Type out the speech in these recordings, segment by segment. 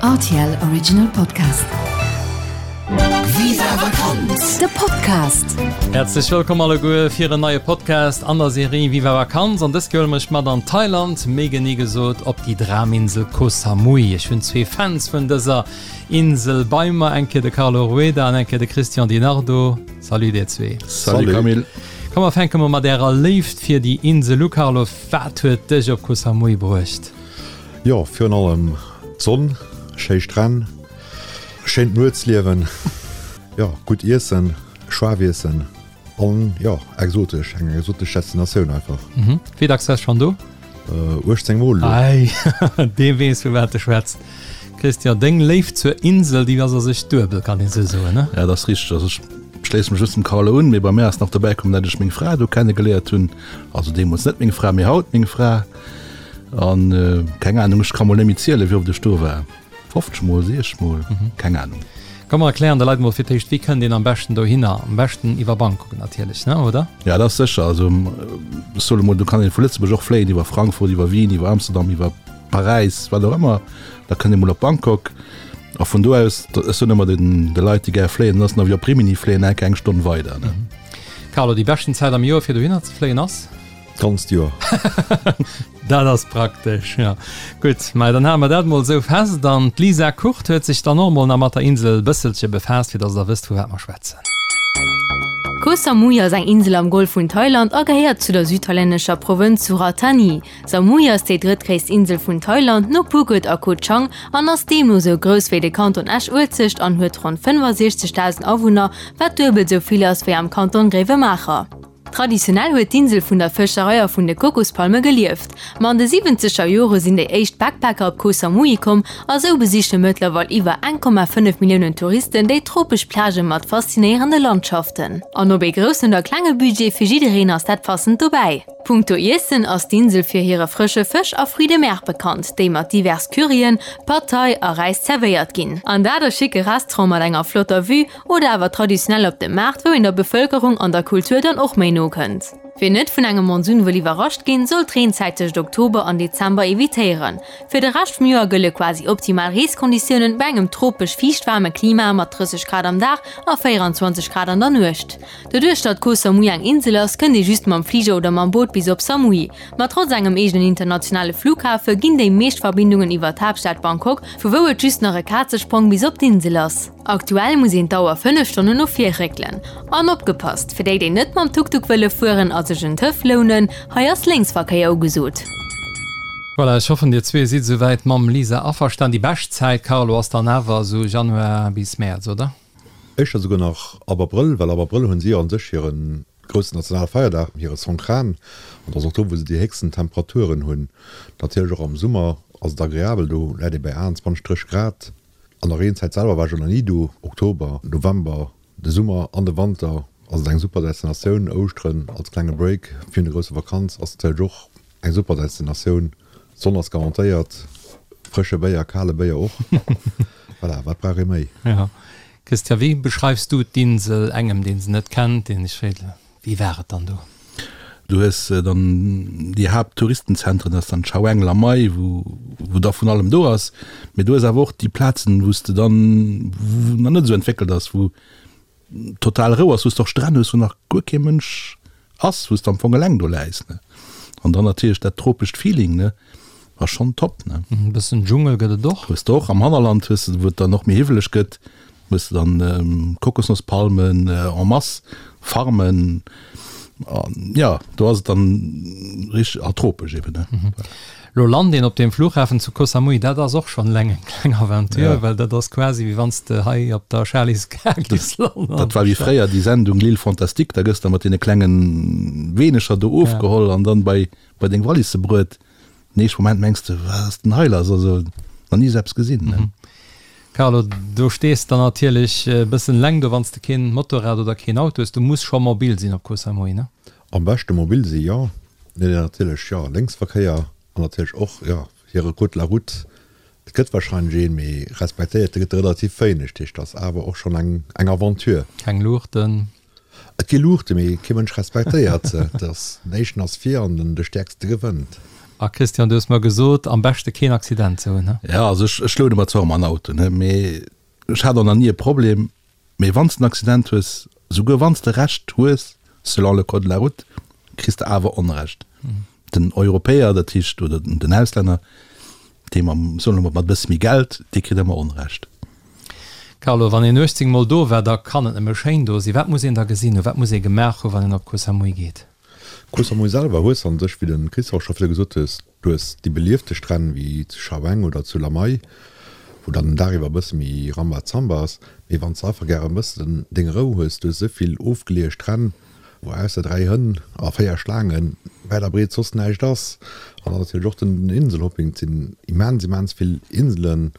Rtl Original Podcast. Viva Vakanz, de Podcast! Häerzlech wëllkomm alleguer fir en neie Podcast an der Serie Viva Vakanz. An dës Kéier huele mer iech mat an Thailand, méi genee gesot op déi Draminsel Koh Samui. Ech hunn zwee Fans vun dëser Insel bei mer, eng Kéier de Carlo Rueda an eng Kéier de Christian Di Nardo. Salut dir zwee. Salut Camille. Komm mer fänke mol mat ärer Léift fir déi Insel u. Carlo, wat huet dech op Koh Samui bruecht? Jo, virun allem d'Sonn, schéi Stränn, schéint Nuetsliewen, jo, gutt Iessen, schaarf Iessen an jo, exotesch, eng exotesch Destinatioun einfach. Mhm. Wéi dacks waars schonn do? 18 Mol elo. Ei, dee weess vu wat e schwätzt. Christian, deng Léift zur Insel, déi ass a sech duebel, kann een esou soen, ne? Ja, dat ass richteg. Also ech schléisse mech just dem Carlo un, mee bei mär ass nach dobäi komm, dat ech meng Fra do kennegeléiert hunn. Also deemools net meng Fra, mee haut meng Fra. An keng Ahnung, ech ka mol net méi zielen, wéi oft ech do war. 50 mol, 60 mol, keng Ahnung. Komm mer erklären de Leit mol fir d'éischt, wéi kënnt een am beschten dohinner? Am beschten iwwer Bangkok natierlech, ne, oder? Ja, dat ass sécher. Also ech soe mol, do kann een vu Lëtzebuerg och fléien iwwer Frankfurt, iwwer Wien, iwwer Amsterdam, iwwer Paräis, wat och ëmmer. Da kënnt ee mol op Bangkok a vun do aus, ech soen ëmmer den de Leit, déi gär fléien, dat ass nach wéi op Rimini fléien, enke eng Stonn weider, ne. Carlo, déi beschten Zäit am Joer fir dohinner ze fléien ass? D'ganzt Joer. Dat ass praktesch, jo. Gutt, mä dann hale mer dat mol esou fest. An d'Lisa Kurt huet sech dann och mol nach mat der Insel e bësselche befaasst, fir dass der wësst, vu wat mer schwätzen. Koh Samui ass eng Insel am Golf vun Thailand a gehéiert zu der südthailännescher Provënz Surat Thani. Samui ass déi drëttgréisst Insel vun Thailand, no Phuket a Koh Chang, an ass deemno sou grouss wéi de Kanton Esch-Uelzecht an huet ronn 65.000 Awunner, wat duebel sou vill ass wéi am Kanton Gréiwemaacher. Traditionell huet d'Insel vun der Fëscherei a vun de Kokospalme gelieft. Ma an de siwwenzeger Jore sinn déi éischt Backpacker op Koh Samui komm a sou besiche mëttlerweil iwwer 1,5 Milliounen Touristen déi tropesch Plagë mat faszinéierende Landschaften. An ob ee groussen oder klenge Budget, fir jiddereen ass dat passend dobäi. Punkto Iessen ass d'Insel fir hire frësche Fësch a Fruits de mer bekannt, déi mat divers Curryen, Pad Thai a Räis zerwéiert ginn. An dat a schicke Restaurante mat enger flotter Vue Oder awer traditionell op dem Maart, wou een der Bevëlkerung an der Kultur dann och méi no kënnt. Wien net vun engem Monsun wëll iwwerrascht ginn, soll d'Reenzäit tëscht Oktober an Dezember evitéieren. Fir de Rescht vum Joer gëlle quasi optimal Reeskonditiounen bei engem tropesch fiichtwaarme Klima mat 30 Grad am Dag a 24 Grad an der Nuecht. Doduerch datt Koh Samui eng Insel ass, kënnt ee just mam Fliger oder mam Boot bis op Samui. Ma trotz engem eegenen internationale Flughafe ginn déi meescht Verbindungen iwwer d'Haaptstad Bangkok, vu wou et just nach e Kazesprong bis op d'Insel ass. Aktuell muss een d'Auer 5 Stonnen no vir réckelen. An opgepasst, fir déi déi net mam Tuk-Tuk wëlle fueren a sech en Töff lounen, hei ass Lénksverkéier ugesot. Voilà, ech hoffen dir zwee sidd esouwäit mam Lisa averstan. Déi bescht Zäit, Carlo, ass dann awer esou Januar bis Mäerz, oder? Éischter souguer nach ab Abrëll, well ab Abrëll hunn si a sech hire groussen nationale Feierdag, hire Songkran, an dat ass och do, wou se déi héchsten Temperaturen hunn. Natierlech och am Summer ass et agreabel, do läit ee bäi 28, 30 Grad. An der Reenzäit selwer war ech och nach ni do, Oktober, November, de Summer an de Wanter ass et eng super Destinatioun. Ouschteren als klenge Break virun der grousser Vakanz ass natierlech och eng super Destinatioun. D'Sonn ass garantéiert, frësche Béier, kale Béier och. Voilà, wat brauch ee méi? Jo. Christian, wéi beschreifs du d'Insel engem, deen se net kennt, deen sech freet, Wéi war et dann do? Du hues dann déi Haapttouristenzentren, dat ass dann Chaweng, Lamai, wou wou da vun allem do ass. Mee du hues awer och déi Plazen, wou s de dann, wou nach net esou entwéckelt ass, wou total Rou ass, wou s de och Stränn hues, wou nach guer kee Mënsch ass, wou s de am Fong eleng do läis, ne. An dann natierlech dat tropescht Feeling, ne, ass schonn top, ne. E bëssen Dschungel gëtt et och. Hues de och am Hannerland, hues de, wou et dann och méi hiwweleg gëtt, Hues de dann Kokosnosspalmen en masse, Farmen, an jo, do ass et dann richteg a tropesch eben, ne. Lo lant een op deem Flughafen zu Koh Samui, dat ass och schonn eleng eng kleng Aventure, well dat ass quasi wéi wann s de hei op der Charly's Gare giffs landen. Dat war wéi fréier déi Sendung L'Île Fantastique, da gëss de mat deene klengen Weenecher do ofgeholl an dann bei bei deng Wallisse bruet. Den éischte Moment mengs de, wat ass denn hei lass, also nach ni esou eppes gesinn, ne. Carlo, do stees de natierlech e bëssen eleng do, wann s de keen Motorrad oder keen Auto hues. Du muss scho mobil sinn op Koh Samui, ne? Am beschte mobil si jo, mee natierlech jo Lénksverkéier an natierlech och jo hire Code de la route. Et gëtt warscheinlech een, mee respektéiert gëtt e relativ wéineg. Dat heescht, ass awer och schonn eng eng Aventure. Keng Luuchten? Et gi Luuchten, mee kee Mënsch respektéiert se. Et ass, den éischten ass vir an den de Stäerkste gewënnt. A Christian, du hues mer gesot, am beschte keen Accident ze hunn, he? Jo, also ech, ech loude mer zwar ëmmer en Auto, ne, mee ech hat och nach ni e Problem. Mee wann s de en Accident hues, souguer wann s de Recht hues, selon le code de la route, kriss de awer Onrecht. Den Europäer, dat heescht, oder den Auslänner, dee mam, soen wir mol, mat e bësse méi Geld, dee kritt ëmmer Onrecht. Carlo, wann een 18 mol do war, da kann et nëmme schéin do sinn. Wat muss een da gesinn hunn, wat muss ee gemaach hunn, wann een op Koh Samui geet? Koh Samui selwer hues an sech, wéi de Christophe scho virdru gesot hues, du hues déi beliefte Stränn wéi zu Chaweng oder zu Lamai, wou dann den Dag iwwer e bësse méi Rambazamba ass. Mee wann s de einfach gären e bëssen deng Rou hues, du hues esou vill ofgeleeë Stränn, wou ausser 3 Hënn a 4 Schlaangen wäit a breet soss näischt ass. An dann natierlech och den Inselhopping, et sinn immens, immens vill Inselen,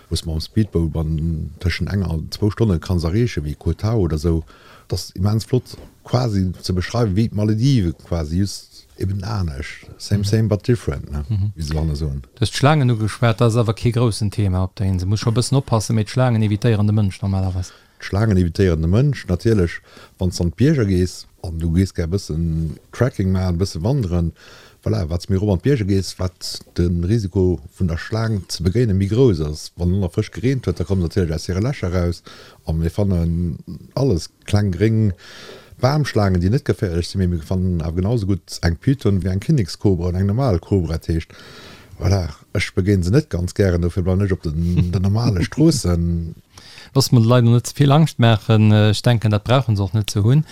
wou s de mam Speedboat an tëschent enger an zwou Stonne kanns erreechen, wéi Koh Tao oder sou. Et ass immens flott quasi ze beschreiwen, wéi d'Malediven quasi, just eben anescht, same same but different, ne, wéi se dohanne soen. Du hues d'Schlaangen ugeschwat, dat ass awer kee groussen Thema op der Insel. Muss scho e bëssen oppassen, mee d'Schlaangen evitéieren de Mënsch normalerweis. D'Schlaangen evitéieren de Mënsch natierlech. Wann s de an d'Bierger gees an du gees gär e bëssen Trekking maachen, e bësse wanderen, voilà, wat s méi erop an d'Bierger gees, wat de Risiko vun der Schlaang ze begéine méi grouss ass. Wann elo nach frësch gereent huet, da komme se natierlech aus hire Lächer eraus a mir fannen alles, kleng gréng Bamschlaangen, déi net geféierlech sinn, mee mir fannen awer genau esou gutt eng Python wéi eng Kinnekskobra oder eng normal Kobra. Dat heescht, voilà, ech begéine se net ganz gären, dofir bleiwen ech op den normale Stroossen. Loosse mer de Leit elo net ze vill Angscht maachen. Ech denken, dat brauche se och net ze hunn.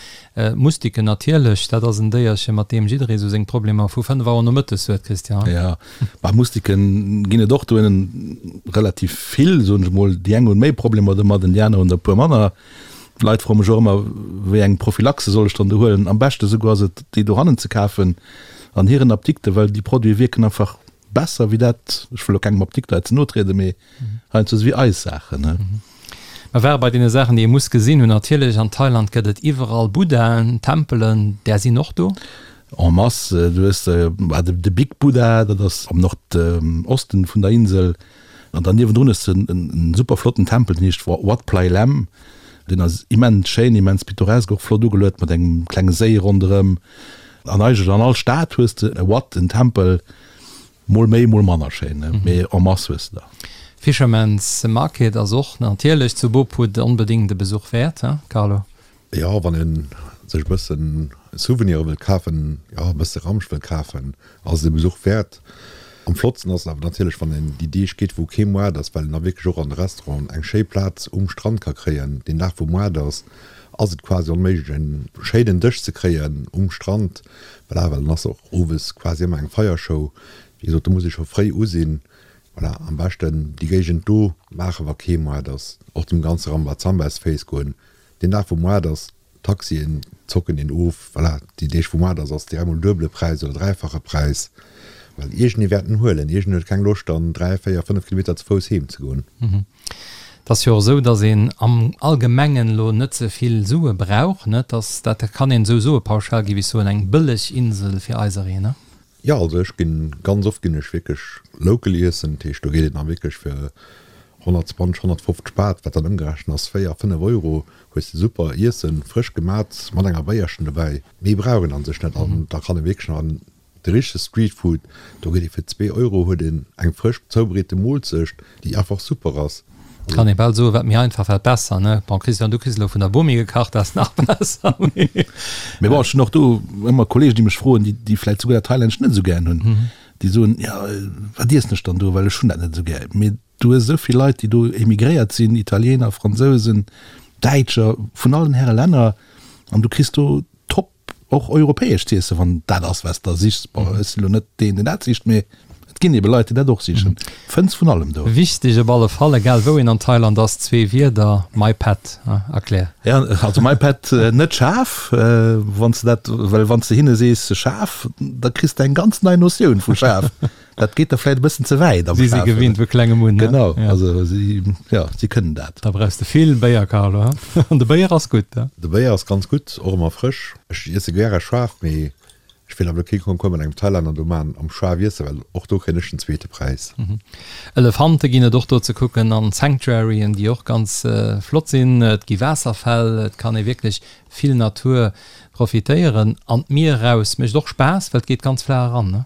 Mustiken natierlech, dat ass en Déierche mat deem jidderee sou seng Problemer vu 5 Auer nomëttes huet, Christian. Jo, bah Mustiken ginn et och dohinnen relativ vill, soen ech emol. Déi eng hunn méi Problemer domadden, déi aner hunn der e puer manner. D'Leit froe mech och ëmmer, wéi eng Prophylaxe soll ech dann do huelen. Am beschte souguer ass et, déi dohannen ze kafen an hiren Apdikten, well déi Produite wierken einfach besser wéi dat, ech wëll elo kengem Apdikter hei ze no trieden, mee heiansdo esou wéi eis Saachen, ne. Mer ware bei deene Saachen, déi ee muss gesinn hunn. Natierlech, an Thailand gëtt et iwwerall Buddhaen, Tempelen, där sinn och do. En masse. Du hues de Big Buddha, dat ass am Nordosten vun der Insel, an dann niewendrun hues de en super flotten Tempel, deen heescht Wat Plai Laem. Deen ass immens schéin, immens pittoresk, och flott ugeluet mat engem klenge Séi ronderëm. An eigentlech an all Stad hues de e Wat, en Tempel, mol méi, mol manner schéin, mee en masse hues de der. Fisherman's Market ass och natierlech zu Bo Phut onbedéngt e Besuch wäert, he Carlo? Jo, wann ee sech e bëssen Souvenire wëllt kafen, jo e bësse Ramsch wëllt kafen, ass et e Besuch wäert. Am flottsten ass et awer natierlech, wann een déi Deeg geet, wou kee Moart ass, well een da wierklech och an de Restauranten eng schéi Plaz um Strand ka kréien. Deen Dag, wou Moart ass, ass et quasi onméiglech, en schéinen Dësch ze kréien um Strand. Voilà, well dann ass och owes quasi ëmmer eng Feiershow. Wéi gesot, do muss ee scho fréi u sinn. Voilà, am beschten déi Géigend do maachen, wa kee Moart ass. Och dem ganze Rambazamba aus de Féiss goen. Deen Dag, wou Moart ass, D'Taxien zocken een of, voilà, déi Deeg wou Moart ass, ass direkt mol duebele Präis oder dräifache Präis, well iergendee wäert en huelen, iergendeen huet keng Loscht dann 3, 4, 5 Kilometer ze Fouss heem ze goen. Et ass jo och esou, datt een am Allgemengen elo net ze vill Sue brauch, ne? Dass dat kann een esou soe pauschal, géif ech soen, eng bëlleg Insel fir eisereen, ne? Jo, also ech ginn, ganz oft ginn ech wierklech local iessen, dat heescht do geet een da wierklech fir 120, 150 Baht, wat dann ëmgerechent ass 4, 5 Euro, hues de super Iessen, frësch gemat, mat enger Béierchen dobäi. Méi brauch een an sech net an da kann ee wierklech nach an de richtege Streetfood, do geet ee fir 2 Euro huet een eng frësch zoubereete Moolzecht, déi einfach super ass. Kann ee bal soen, wat méi einfach, wat besser, ne? Bon, Christian, du kriss elo vun der Bomi gekacht, dat ass nach besser. Mee bon, ech hunn och do ëmmer Kollegen, déi mech froen, déi, déi vläicht souguer dat Thailännescht net esou gären hunn, déi soen, jo, wat iessen ech dann do, well ech hunn dat net esou gär. Mee du hues esou vill Leit, déi do emigréiert sinn, Italiener, Fransousen, Däitscher, vun allen Häre Länner, an du kriss do top Och europäesch z'iessen, wann dat ass, wat s de sichs. Bon, ech sinn elo net deen, deen dat sicht, mee et ginn ebe Leit, déi dat och sichen. Fënns vun allem do. Wichteg op alle Fall, egal wou een an Thailand ass, zwee Wierder, Mai Pet, erklär. Ja, also Mai Pet, net schaarf, wann s de dat, well wann s de hinne sees schaarf, da kriss de eng ganz nei Notioun vu schaarf. Dat geet da vläit e bëssen ze wäit am Si si gewinnt vu klengem un, ne? Genau, also si, jo, si kënnen dat. Da brauchs de vill Béier, Carlo, he? An de Béier ass gutt, he? De Béier ass ganz gutt, och ëmmer frësch. Ech iesse gäre schaarf, mee ech wéilt awer elo kee Concours mat engem Thailänner do maachen am schaarf iessen, well och do kréien ech den zweete Präis. Elefante ginn et och do ze kucken an Sanctuaryen, déi och ganz flott sinn. Et gi Waasserfäll, et kann ee wierklech vill Natur profitéieren. An d'Mier eraus mécht och Spaass, well et geet ganz flaach eran, ne?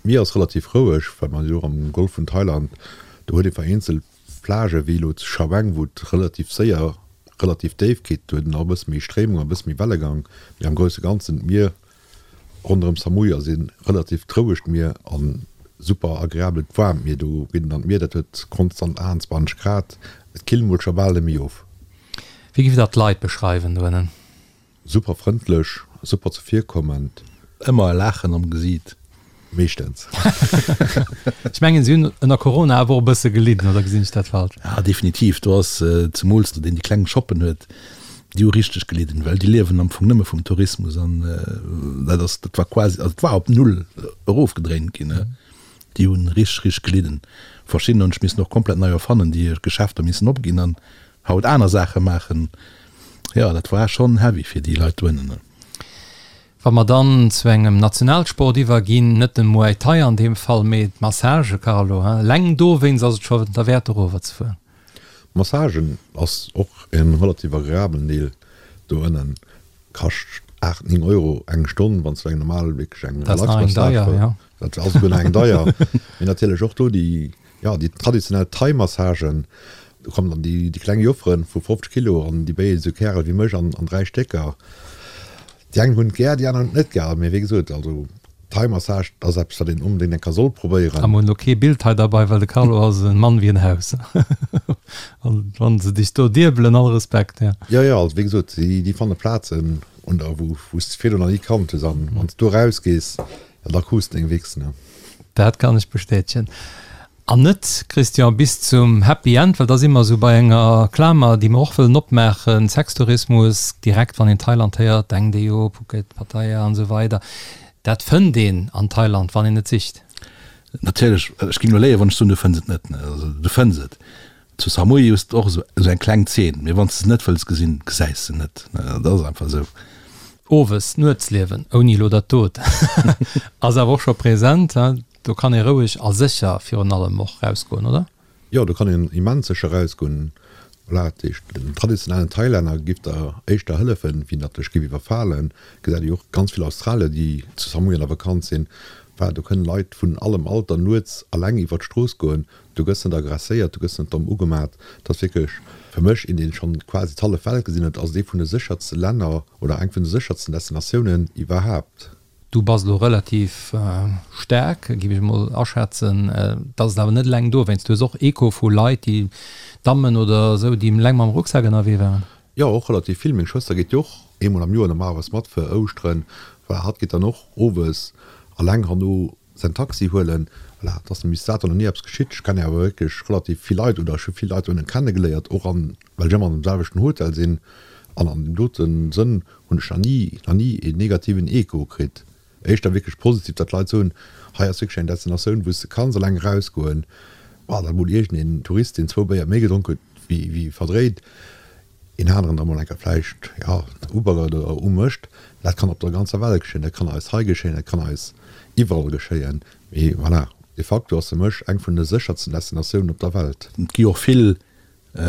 D'Mier ass relativ roueg, well mer jo och am Golf vun Thailand, do huet ee vereenzelt Plagë wéi elo zu Chaweng, wou et relativ séier relativ déif geet, do huet een och e bësse méi Stréimung a e bësse méi Wellegang, mee am grousse Ganzen d'Mier ronderëm Samui ass ee relativt rouegt Mier a super agreabelt waarmt Mier. Do geet een an d'Mier, dat huet konstant 28 Grad, et killt mol scho bal net méi of. Wéi giff der d'Leit beschreiwen doënnen? Super frëndlech, super zevirkommend. Ëmmer e Laachen am Gesiit. Meeschtens. Ech mengen si hunn ënner Corona awer och e bësse gelidden, oder gesinn ech dat falsch? Ja definitiv, do ass zemools deen déi kleng Shoppen huet, déi hu richteg gelidden, well déi liewen am Fong nëmme vum Tourismus an dat ass, dat war quasi, also et war op null erofgedréint ginn. Déi hunn richteg, richteg gelidden. Verschidden hunn sech missen och komplett nei erfannen, déi hir Geschäfter missen opginn an haut aner Saache maachen. Jo, dat war schonn heavy fir déi Leit doënnen. Wa mer dann zu engem Nationalsport iwwerginn, net dem Muay Thai an deem Fall, mee d'Massage, Carlo, hein? Eleng dowéinst ass et scho derwäert erover ze fueren. Massagen ass och e relativ agreabelen Deel doënnen. Kascht 8, 9 Euro eng Stonn, wann s du eng normal, wierklech eng Relax-Massage wëlls. Dat ass esouguer nach eng deier. Mee natierlech och do déi Jo, déi traditionell Thai-Massagen, do kommen dann déi kleng Jofferen vu 50 Kilo an déi béien esou Kärel wéi mech an 3 Stécker. Déi eng hunn et gär, déi aner hunn et net gär. Mee wéi gesot, also Thai-Massage, dat ass eppes, wat een onbedéngt eng Kéier soll probéieren. A mer hunn elo kee Bild hei derbei, well de Carlo ass e Mann wéi en Haus. An wann se dech do diebelen, all Respekt, jo. Jo, jo, also wéi gesot, déi fanne Plazen un der, wou s de virdrun nach ni kannt hues. An wann s du erausgees, Ja, da krus deng Wichs, ne? Dat kann ech bestätegen. An net, Christian, bis zum Happy End, well da si mer esou bei enger Klamer, déi mer och wëllen opmaachen, Sextourismus, direkt wann een Thailand héiert, denkt ee jo Phuket, Pattaya an esou weider. Dat fënnt een an Thailand, wann een et sicht. Natierlech, ech géing elo léien, wann ech soen, du fënns et net. Also du fënns et. Zu Samui hues de och esou eng kleng Zeen, mee wann s de se net wëlls gesinn, gesäis se net. Dat ass einfach esou. Owes, d'Nuetsliewen, ouni elo dat dot, ass awer och scho present. Do kann ee roueg a sécher virun allem och rausgoen, oder? Jo, do kann een immens sécher rausgoen. Voilà, dat heescht, den traditionellen Thailänner giff der éischter hëllefen, wéi datt dech giff iwwerfalen. Gesäit ee jo och ganz vill Australier, déi zu Samui an der Vakanz sinn. Voilà, do kënnen Leit vun allem Alter nuets alleng iwwer d'Strooss goen. Du gëss net aggresséiert, du gëss net domm ugemat. Et ass wierklech fir mech, een deen schonn quasi d'hallef Welt gesinn huet, ass et ee vun de séchertste Länner oder eng vun de séchertsten Destinatiounen iwwerhaapt. Du bass elo relativ staark, géif ech emol aschätzen. Et ass et awer net eleng dowéinst. Du hues och Echo vu Leit, déi, Dammen oder esou, déi eleng mam Rucksak ënnerwee waren. Jo, och relativ vill. Meng Schwëster geet jo och eemol am Joer normalerweis mat fir Ouschteren. Voilà, hatt geet dann och owes eleng herno Säin Taxi huelen. Voilà, et ass bis dato nach ni eppes geschitt. Ech kennen awer wierklech relativ vill Leit oder ech hu vill Leit dohinne kennegeléiert, och an, well ech ëmmer an dem selwechten Hotel sinn. An an deem dote Sënn hunn ech nach ni, nach ni een negativen Echo kritt. Éischter wierklech positiv, datt d'Leit soen, hei ass wierklech eng Destinatioun, wou s de kanns eleng erausgoen. Bon, datt emol iergendeen Tourist, deen zwou Béier méi gedronk huet wéi, wéi verdréit, een aneren da mol eng Kéier vläicht, jo, ubaggert oder umécht, dat kann op der ganzer Welt geschéien, dat kann eis hei geschéien, dat kann eis iwwerall geschéien. Mee voilà, de facto ass fir mech eng vun de séchersten Destinatiounen op der Welt. Et gi och vill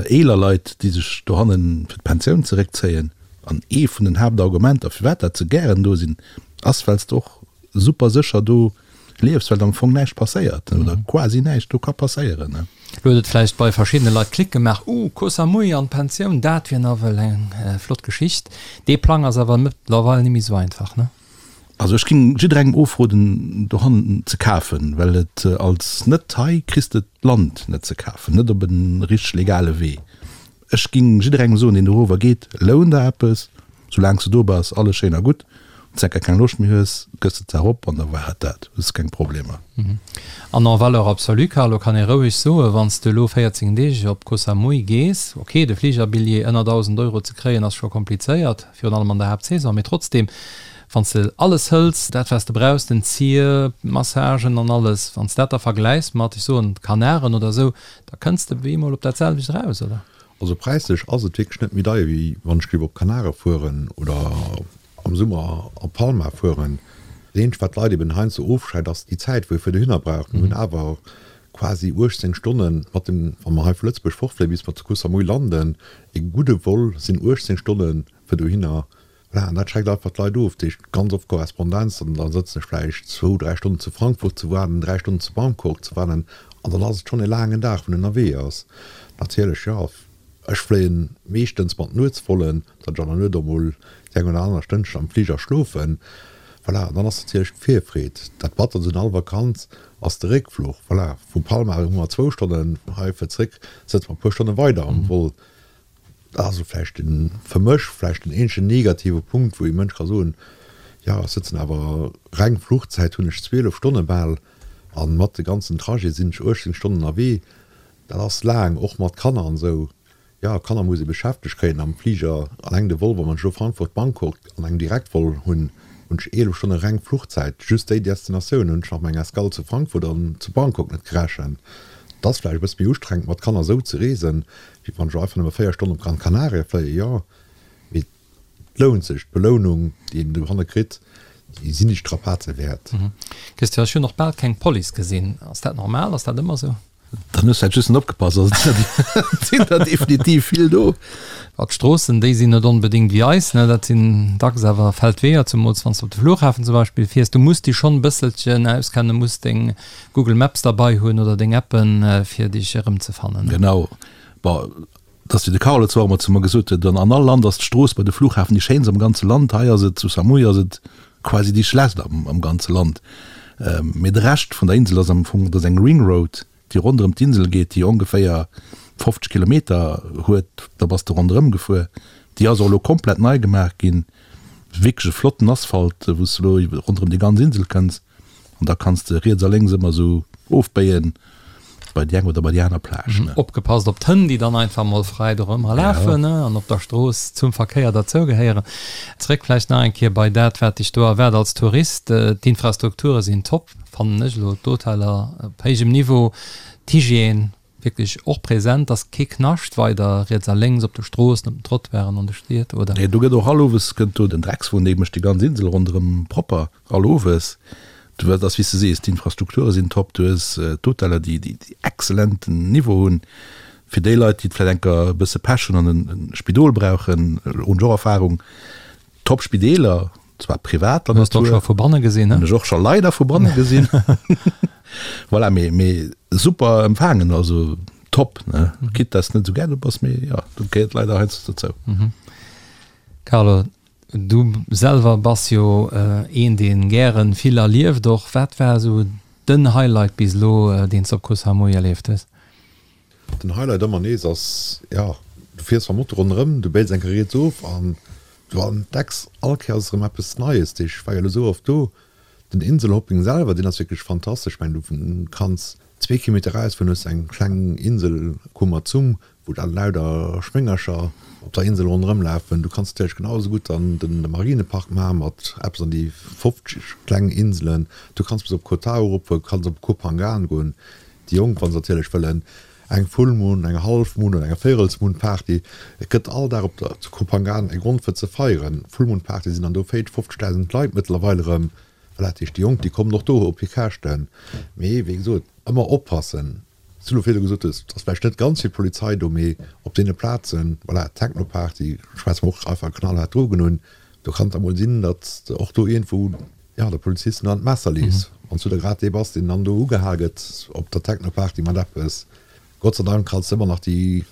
eeler Leit, déi sech dohanne fir d'Pensioun zeréckzéien. An ee vun den Haaptargumenter, firwat dat se gären do sinn, ass, well s de och super sécher do liefs, well am Fong näischt passéiert oder quasi näischt do ka passéieren. Lo huet et vläicht bei verschiddene Leit Klick gemaach, Uh, Koh Samui an d'Pensioun, dat wier nawell eng flott Geschicht. Dee Plang ass awer mëttlerweil net méi esou einfach, ne? Also ech géing jidderengem ofroden dohannen ze kafen, well et als Net-Thai kriss de d'Land net ze kafen, net op e richteg legale Wee. Ech ging jidderengem soen deen dorower geet, loun der eppes, soulaangs de do bass, alles schéin a gutt, wanns de enker keng Loscht méi hues, gëss de d'Saach op an da war et dat, hues de keng Problemer. An en valeur absolue, Carlo, kann ee roueg soen, wann s de elo 14 Deeg op Koh Samui gees, ok, de Fligerbilljee ënner 1.000 Euro ze kréien ass scho komplizéiert, virun allem an der Haaptsaison, mee trotzdem, wann s de alles hëls, dat wat s de brauchs, den Zier, d'Massagen an alles, wann s dat da vergläichs mat, ech soen, Kanaren oder esou, Da kënns de bemol op dat selwecht eraus, oder? Also präislech ass et wierklech net méi deier wéi wann ech géif op Kanare fueren oder am Summer op Palma fueren. Dat eenzegt wat d'Leit eben heiansdo ofschreckt ass déi Zäit wou ee fir dohinner brauch. Mir hunn awer quasi 18 Stonnen mat dem, wa mer hei vu Lëtzebuerg fortfléien bis mer zu Koh Samui landen, ee gudde Vol sinn 18 Stonne fir dohinner. Voilà, an dat schreckt einfach d'Leit of. Dat heescht, ganz oft Korrespondenz, an da sëtzen ech vläicht zwou, dräi Stonnen zu Frankfurt ze waarden, dräi Stonnen zu Bangkok ze waarden, an dann ass et schonn e laangen Dag, wou en ënnerwee ass. Natierlech, jo, ech fléien meeschtens mat Nuetsvollen, datt ech an der Nuet och mol déi eng oder aner Stënnchen am Fliger schlofen. Voilà, an dann ass natierlech d'Virfreed. Dat Batterst un all Vakanz ass de Réckfluch. Voilà, vu Palma hu mer zwou Stonnen, hei fir zréck sëtze mer e puer Stonne weider am Vol. Dat ass elo vläicht den, fir mech vläicht den eenzegen negative Punkt, wou ee Mënsch ka soen, jo, ech sëtzen awer, reng Fluchzäit hunn ech 12 Stonne bal a mat de ganzen Trajet sinn ech 18 Stonnen ënnerwee. Dat ass laang, och mat Kanner an esou. Jo, Kanner muss ee beschäftegt kréien am Fliger. Alleng de Vol, wa mer elo Frankfurt-Bangkok an engem Direktvol hunn, hunn ech 11 Stonne reng Fluchzäit. Just déi Destinatioun hunn ech nach meng Escale zu Frankfurt an zu Bangkok net gerechent. Et ass vläicht e bësse méi ustrengend mat Kanner esou ze reesen, Wéi wann ech elo einfach nëmme 4 Stonnen op Gran Canaria fléien, jo, mee et lount sech. D'Belounung, déi een dohanne kritt, déi sinn déi Strapaze wäert. Christian, ech hunn och bal keng Police gesinn. Ass dat normal? Ass dat ëmmer esou? Dann hues vläit just net opgepasst, also et sinn der definitiv vill do. Bon, d'Stroossen, déi sinn net onbedéngt wéi eis, ne, dat sinn dacks awer Feldweeër, zemools wann s de op de Flughafen zum Beispill fiers. Du muss dech schonn e bësselchen auskennen, muss deng Google Maps derbei hunn oder deng Appen, fir dech erëmzefannen. Genau. Bon, et ass wéi de Carlo zwar ëmmer zu mer gesot huet, an all Land ass d'Strooss bei de Flughafen déi schéinst am ganze Land. Hei ass et, zu Samui ass et quasi déi schlechtst am, am ganze Land. Mee de Rescht vun der Insel ass am Fong, dat ass eng Ring Road, déi ronderëm d'Insel geet, déi ongeféier 50 Kilometer huet, da bass de ronderëm gefuer. Déi ass och elo komplett nei gemaach ginn, wierklech e flotten Asphalt, wou s de elo ronderëm déi ganz Insel kënns. An da kanns de riets a lénks ëmmer esou ofbéien bei déi eng oder bei déi aner Plage, ne. Opgepasst op d'Hënn, déi dann einfach mol fräi dorëmmer lafen, ne, an op der Strooss zum Verkéier derzougehéieren. Zréck vläicht nach eng Kéier bei dat, wat dech do erwaart als Tourist. D'Infrastrukture sinn top, fannen ech elo, d'Hoteller op héijem Niveau, d'Hygiène wierklech och present, ass kee Knascht weider riets a lénks op de Stroossen, op den Trottoiren an de Stied, oder? Nee, do gëtt och all Owes kënnt do den Dreckswon, dee mécht déi ganz Insel ronderëm propper. All Owes. Du hues, ass wéi s de sees, d'Infrastrukture sinn top, du hues d'Hoteller, déi déi exzellenten Niveau hunn. Fir déi Leit, déi vläicht enker e bësse Pech hunn an e Spidol brauchen, hunn ech och Erfahrung, top Spideeler, zwar privater Natur. Hues de och scho vu banne gesinn, ne? Hunn ech och scho leider vu banne gesinn. Voilà, mee mee super empfaangen, also top, ne? Quitte dass de net esou gär do bass, mee jo, dat gehéiert leider heiansdo dozou. Carlo, Du selwer bass jo een deen gären vill erlieft och. Wat war esou den Highlight bis elo deen s de op Koh Samui erlieft hues? Den Highlight ëmmer nees ass, jo, du fiers mam Moto ronderëm, du béils eng Kéier riets of an du entdecks all Kéiers erëm eppes Neies. Ech war jo elo esou oft do. Den Inselhopping selwer, deen ass wierklech fantastesch. Ech mengen, du kanns zwee Kilometer erausfueren, hues eng kleng Insel Koh Matsum, wou da lauter Schwéngercher op der Insel ronderëm lafen. Du kanns natierlech genau esou gutt dann de Marinepark maachen mat eppes an déi 50 kleng Inselen. Du kanns bis op Koh Tao eropfueren, du kanns op Koh Phangan goen. Déi Jonk, wa se natierlech wëllen, eng Full Moon, eng Half Moon oder eng Véirels Moon Party. Et gëtt all Dag op der zu Koh Phangan e Grond fir ze feieren. Full Moon Party sinn dann do 40, 50.000 Leit mëttlerweil erëm. Voilà, dat heescht déi Jonk, déi kommen och do op hir Käschten. Mee wéi gesot, ëmmer oppassen. Wéi du virdu gesot hues, et ass vläicht net ganz vill Polizei do, mee op deene Plazen, voilà, Techno-Party, schwätze mer och einfach knallhaart Drogen un, do kann et da mol sinn, datt de och do iergendwou, jo, de Polizisten an d'Messer lees, wann s du da grad dee bass, deen dann do ugehal gëtt op der Techno-Party mat eppes. Gott sei Dank kanns de ëmmer nach déi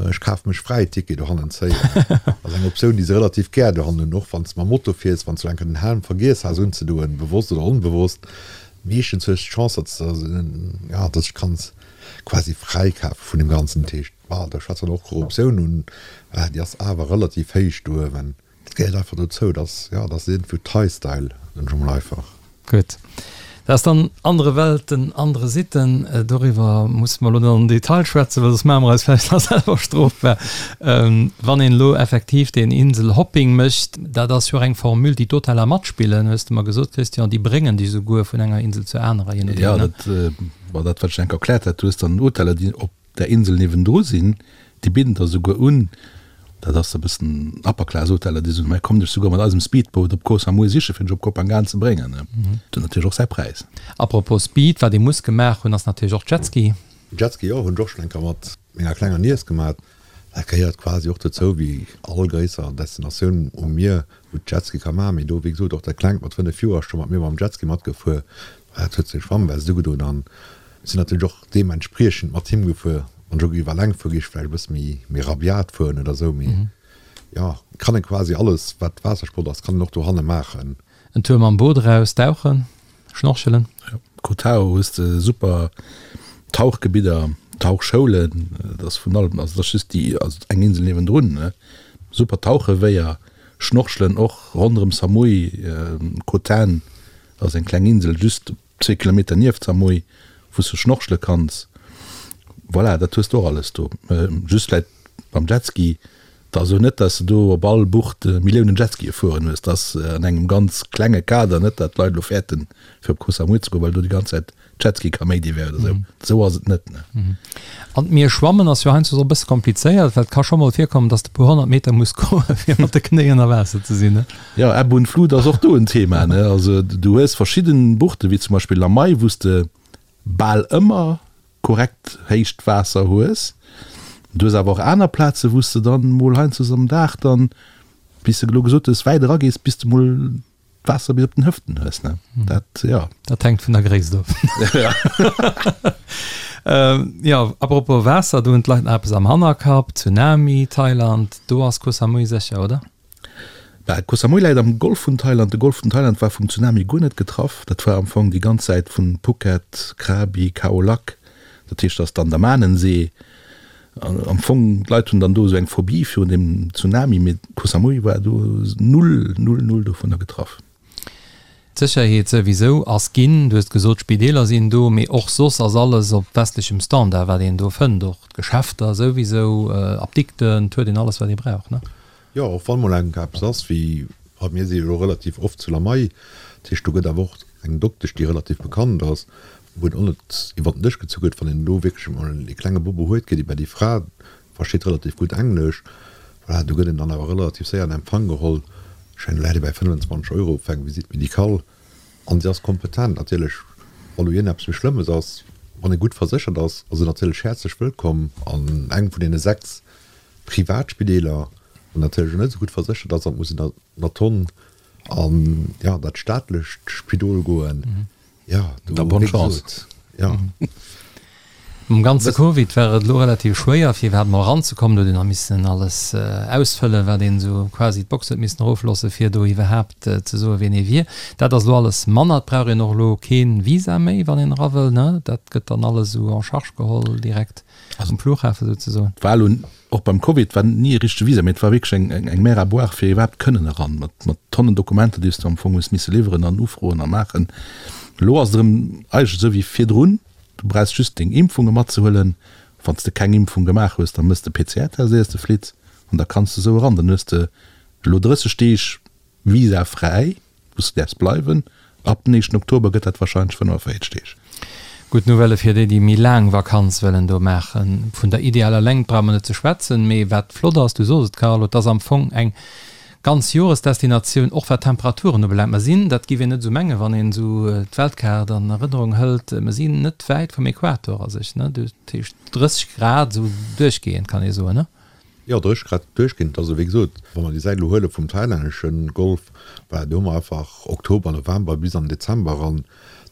Ech kafe mech fräi Ticket dohannen zéien. Dat ass eng Optioun, déi se relativ gär dohannen hunn, och wann s de mam Moto fiers, wann s du eng Kéier den Helm vergiess has unzedoen, bewosst oder onbewosst. Meeschtens hues de d'Chance, datt s de, ja, datt s de kanns quasi fräikafe vun deem Ganzen. Dat heescht, bah, da schwätzt dann och Korruptioun un, bah, déi ass awer relativ héich do uewen. Dat gehéiert einfach dozou, dat ass, ja, dat ass iergendwou Thai-Style, soen ech emol einfach. Gutt, dat ass dann andere Welten, andere Sitten. Doriwwer musse mer elo net am Detail schwätzen, well soss maache mer eis vläicht nach selwer strofbar. Wann een elo effektiv deen Inselhopping mécht, dat ass jo och eng Formule, déi d'Hoteller matspillen, hues de mer gesot, Christian, déi bréngen dech esouguer vun enger Insel zur anerer, je nodeem, ne? Jo, dat war dat, wat ech enk erkläert hat. Du hues dann Hoteller, déi op der Insel niewendru sinn, déi bidden der souguer un, dat ass e bëssen Upper Class Hoteller, déi soen, mei komm dech souguer mat eisem Speedboat op Koh Samui siche fir dech op Koh Phangan ze bréngen. Dat huet natierlech och säi Präis. Apropos Speed, wat ee muss gemaach hunn, ass natierlech och Jetski. Jetski, jo, hunn ech och schonn eng Kéier mat menger klenger Niess gemaat. Dat gehéiert quasi och dozou, wéi all gréisser Destinatioun um Mier, wou d'Jetski ka maachen. Mee do, wéi gesot, och dat Klengt mat 5 Joer ass scho mat mir mam Jetski matgefuer. Dat huet seng Schwammwest ugedoen an sinn natierlech och deementspriechend mat him gefuer. Wann ech och géif eleng fueren, géif ech vläicht e bësse méi, méi rabiat fueren oder esou. Mee jo, kann e quasi alles, wat Waassersport ass, kann en och dohanne maachen. En Tour mam Boot eraus, dauchen, schnorchelen. Jo, Koh Tao hues de super Tauchgebidder, Tauchschoulen, et ass vun allem, also et ass just déi, also eng Insel niewendrun, ne, super Tauchewéier, schnorchelen och ronderëm Samui, Koh Tan ass eng kleng Insel just zwee Kilometer nieft Samui, wou s de schnorchele kanns. Voilà, dat hues de och alles do. Just vläit beim Jetski, 't ass elo net, dass de do op all Bucht Milliounen Jetskië fueren hues. 't ass an engem ganz klenge Kader, net dat d'Leit elo fäerten, fir op Koh Samui ze goen, well do déi ganz Zäit Jetski-Kaméidi wär oder esou. Esou ass et net, ne. An d'Mier schwammen ass jo heiansdo och e bësse komplizéiert, well et ka scho mol virkommen, dass de e puer 100 Meter muss goen, fir mat de Knéi ënner Waasser ze sinn, ne? Jo, Ebb und Flut ass och do en Thema, ne. Also du hues verschidden Buchte wéi zum Beispill Lamai, wou s de bal ëmmer korrekt héicht Waasser hues. Du hues awer och aner Plaze wou s de dann mol heiansdo am Dag dann, wéi s de elo gesot hues, wäit eragees, bis de mol d'Waasser bis op den Hëften hues, ne. Dat, jo. Dat hänkt vun der Gréisst of. Jo, apropos Waasser, do hunn d'Leit nach eppes am Hannerkapp, Tsunami, Thailand, do ass Koh Samui sécher, oder? Bah, Koh Samui läit am Golf vun Thailand. De Golf vun Thailand war vum Tsunami guer net getraff. Dat war am Fong déi ganz Säit vun Phuket, Krabi, Khao Lak, dat heescht, dat ass d'Andamanensee. Am Fong, d'Leit hunn dann do esou eng Phobie virun deem Tsunami, mee Koh Samui war do null, null, null dovunner getraff. D'Sécherheet souwisou ass ginn, du hues gesot, d'Spideeler sinn do, mee och soss ass alles op westlechem Standard, wat een do fënnt, och d'Geschäfter souwisou, Apdikten, et huet een alles, wat ee brauch, ne? Jo, och wann mol eng eppes ass wéi, a mir si jo elo relativ oft zu Lamai, dat heescht do gëtt awer och eng Doktesch, déi relativ bekannt ass, wou et och net iwwer den Dësch gezu gëtt, wann een elo wierklech emol ee klenge Bobo huet, geet ee bei déi Fra, Versteet relativ gutt Englesch. Voilà, do gëtt een dann awer relativ séier an Empfang geholl. Ech mengen, do läit ee bäi 25 Euro fir eng Visite médicale. An si ass kompetent. Natierlech, wa lo iergendeppes méi Schlëmmes ass, wann ee gutt verséchert ass, ass een natierlech häerzlech wëllkomm an engem vun deene 6 Privatspideeler. Wann natierlech elo net esou gutt verséchert ass, dann muss een der Tonn an, jo, dat staatlecht Spidol goen. Ja, do, Da bonne chance. Ja. Mam ganze Covid war et elo relativ schwéier, fir iwwerhaapt mol eranzekommen. Do huet een nach missen alles ausfëllen, wat een esou quasi d'Box huet missen erofloossen, fir do iwwerhaapt ze soen, wien ee wier. Dat ass elo alles manner. Et brauch een och elo kee Visa méi, wann een era wëll, ne? Dat gëtt dann alles esou en charge geholl direkt um Flughafen souzesoen. War elo Och beim Covid war ni e richtege Visa, mee et war wierklech eng eng Mer à boire fir iwwerhaapt kënnen eran, mat mat Tonnen Dokumenter, déi s du am Fong hues misse liwweren an ufroen a maachen. Elo ass et erëm eigentlech esou wéi virdrun, du brauchs just deng Impfunge matzehuelen. Wann s de keng Impfung gemaach hues, da mëss de PCR-Test éiers de flitt an da kanns de esou eran. Dann hues de elo 30 Deeg visafräi. Wou s de däerfs bleiwen. Ab den éischten Oktober gëtt dat warscheinlech 45 Deeg. Gutt Nouvellë fir déi, déi méi laang Vakanz wëllen do maachen. Vun der idealer Längt brauche mer net ze schwätzen, mee wat flott ass, du sos et Carlo, et ass am Fong eng ganz Joresdestinatioun, och wat d'Temperaturen ubelaangt. Mer sinn, dat giff een net esou mengen, wann een esou d'Weltkaart an Erënnerung hëlt, mer sinn net wäit vum Äquator a sech, ne? Dat heescht 30 Grad esou duerchgehend, kann ee soen, ne? Jo, 30 Grad duerchgehend. Also wéi gesot, wa mer déi Säit elo huele vum thailännesche Golf, voilà, do hu mer einfach Oktober, November bis an den Dezember eran,